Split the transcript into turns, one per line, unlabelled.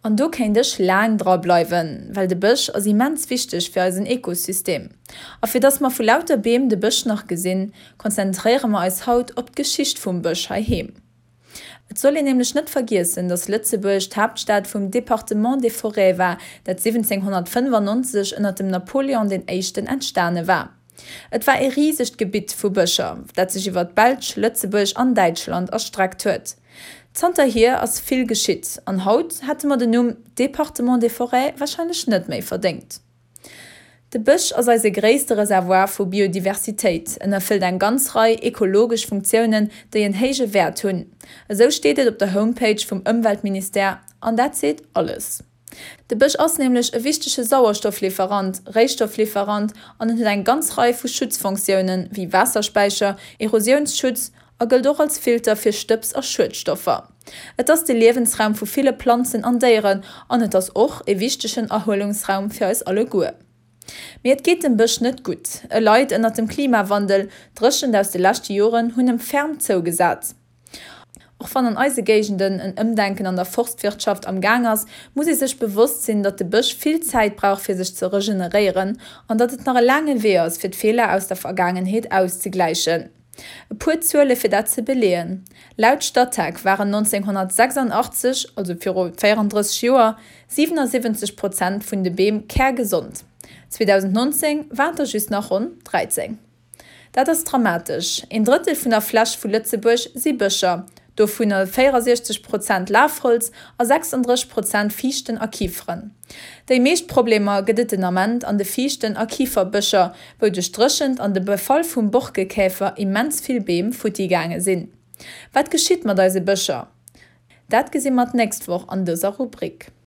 An do kéint ech laang dra bleiwen, well de Bësch ass immens wichteg fir eisen Ekosystem. A fir dass mer vu lauter Beem de Bësch nach gesinn, konzentréiere mer eis haut op d'Geschicht vum Bësch heiheem. Et soll een nämlech net vergiessen, dass Lëtzebuerg d'Haaptstad vum Département des Forêts war, dat 1795 ënner dem Napoléon den Éischten entstane war. Et war ee risegt Gebitt vu Bëscher, dat sech iwwer d'Belsch, Lëtzebuerg an Däitschland erstreckt huet. Zanterhier ass vill geschitt an haut hätte mer den Numm Département des Forêts warscheinlech net méi verdéngt. De Bësch ass eise gréisste Reservoir vu Biodiversitéit. En erfëllt eng ganz Rei ekologesch Funktiounen, déi en héije Wäert hunn. Esou steet et op der Homepage vum Ëmweltministère, an dat seet alles. De Bësch ass nämlech e wichtege Sauerstofflieferant, Réistofflieferant an en huet eng ganz Rei vu Schutzfonctiounen, wéi Waasserspäicher, Erosiounsschutz a gëllt och als Filter fir Stëbs a Schuedstoffer. Et ass de Liewensraum vu ville Planzen an Déieren an et ass och e wichtegen Erhuelungsraum fir eis alleguer. Mee et geet dem Bësch net gutt. E leit ënnert dem Klimawandel, d'Dréchent aus de leschte Joren hunn em ferm zougesat. Och wann an eise Géigenden en Ëmdenken an der Forstwirtschaft am Gaang ass, muss ee sech bewosst sinn, datt de Bësch vill Zäit brauch fir sech ze regeneréieren an datt et nach e laange Wee ass fir d'Feeler aus der Vergaangenheet auszegläichen. E puer Zuele fir dat ze beleeën, Laut Statec waren 1986, also viru 34 Joer, 77 Prozent vun de Beem kärgesond. 2019 waren et der just nach ronn 13. Dat ass dramatesch. Een Drëttel vun der Fläch vu Lëtzebuerg si Bëscher, dovunner 64 Prozent Lafholz a 36 Prozent Fiichten a Kiferen. Déi meescht Problemer gëtt et den Ament an de Fiichten a Kiferbëscher, wou duerch d'Dréchent an de Befall vum Borkekäfer immens vill Beem futti gaange sinn. Wat geschitt mat eise Bëscher? Dat gesi mer d'nächst Woch an dëser Rubrik.